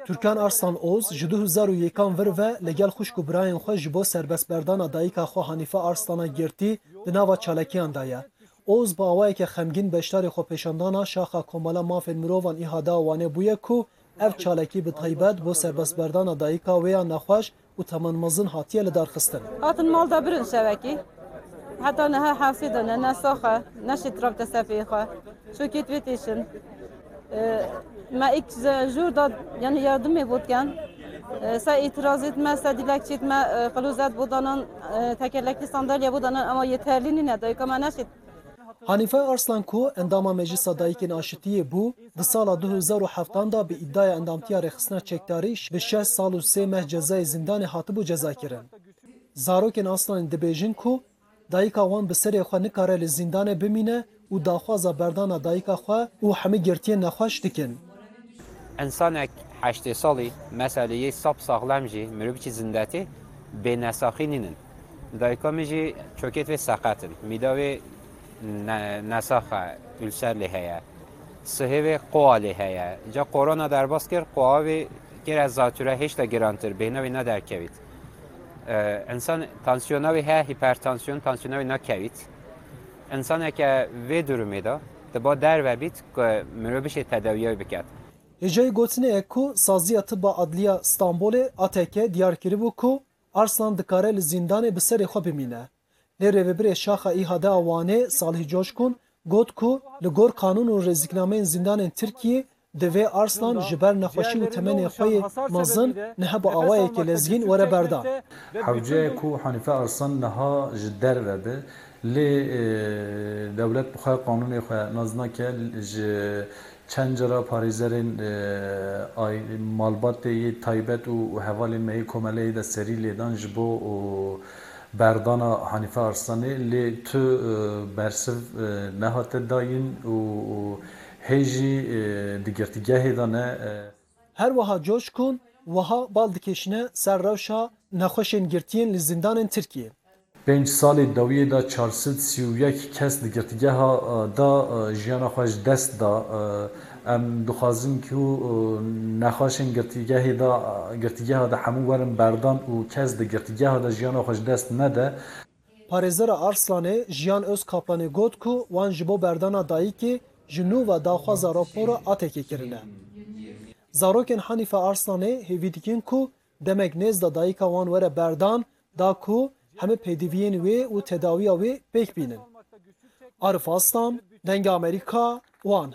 Türkan Arslan Oz ji 2001 vir ve li gel xwişk û birayên xwe ji bo serbestberdana dayika xwe Hanîfe Arslana girtî di nava çalakiyan de ye. Oz bi awayeke xemgîn beşdarî xwepêşandana Şaxa Komela Mafên Mirovan IHD'a Wanê bûye ku ev çalakî bi taybet bo serbestberdana dayika wê ya nexweş û temenmezin hatiye lidarxistin. Hatin mal da birin şevekî. Heta niha hewsê de ne, ne sax e, ne şît rabite ser pêyê xwe. Çokê wê têşin. Me îk jûr da yani yardimê bo dikin. Se îtirazê me, se dîlekçê me qilozet bo danan, tekerlekli sandalye bo danan ema yeterlî nîne dayika me neşît. Hanîfe Arslan ku endama Meclisa Dayikên Aşitiyê bû, di sala 2007 de bi îdiaya endamtiya rêxistina çekdarî bi şeş sal û sê meh cezayê zindanê hatibû cezakirin. Zarokên Arslanê dibêjin ku dayika wan bi serê xwe nikare li zindanê bimîne û daxwaza berdana dayika xwe û hemî girtiyên nexweş dikin. Însanek 80 salî meselê yê sap saxlem jî mirov biçî zindetê bênesaxî nînin. Dayika min jî çokêt wê seqet in. Mîda wê nesax e, ulser lê heye. Sihê wê qoa lê heye. Ca korona derbas kir, qoa wê kir ez zatüre hêşta girantir, bêhna wê nederkevît. Însan tansiyona wê heye, hipertansiyon, tansiyona wê nakevît. Însaneke vê durumê de diba derve bît ku mirov bişê tedawiya wê biket. Hêjayî gotinê ye ku Saziya Tiba Adliya Stenbolê, ATK, diyar kiribû ku Arslan dikare li zîndanê bi serê xwe bimîne. Lê rêvebirê Şaxa IHD'a Wanê Salih Coşkun got ku li gor qanûn û rêziknameyên zîndanên Tirkiyê divê Arslan ji ber nexweşî û temenê xwe yê mezin niha bi awayekî lezgîn were berdan. Hewce ye ku Hanîfe Arslan niha ji derve be lê dewlet bi xwe qanûnê xwe nas nake ji Çend cara parêzerên malbatê yê taybet û hevalên me yê komeleyê de serî lêdan ji bo berdana Hanîfe Arslanê lê tu bersiv nehate dayîn û hê jî di girtîgehê de ne. Her wiha Coşkun wiha bal dikêşine ser rewşa nexweşên girtiyên li zindanên Tirkiyê. Pênc salê dawiyê de 431 kes di girtîgeha de jiyana xwe ji dest da. Em dixwazin ku nexweşên girtîgehê de girtîgeha de hemû werin berdan û kes di girtîgeha de jiyana xwe ji dest nede. Parêzera Arslanê Jiyan Ozkaplanê got ku wan ji bo berdana dayikê ji nû ve daxwaza rapora ATK'ê kirine. Zarokên Hanîfe Arslanê hêvî dikin ku demek nêz de dayika wan were berdan da ku hemû pêdiviyên wê û tedawiya wê pêk bînin. Arif Aslan, Dengê Amerîka, Wan.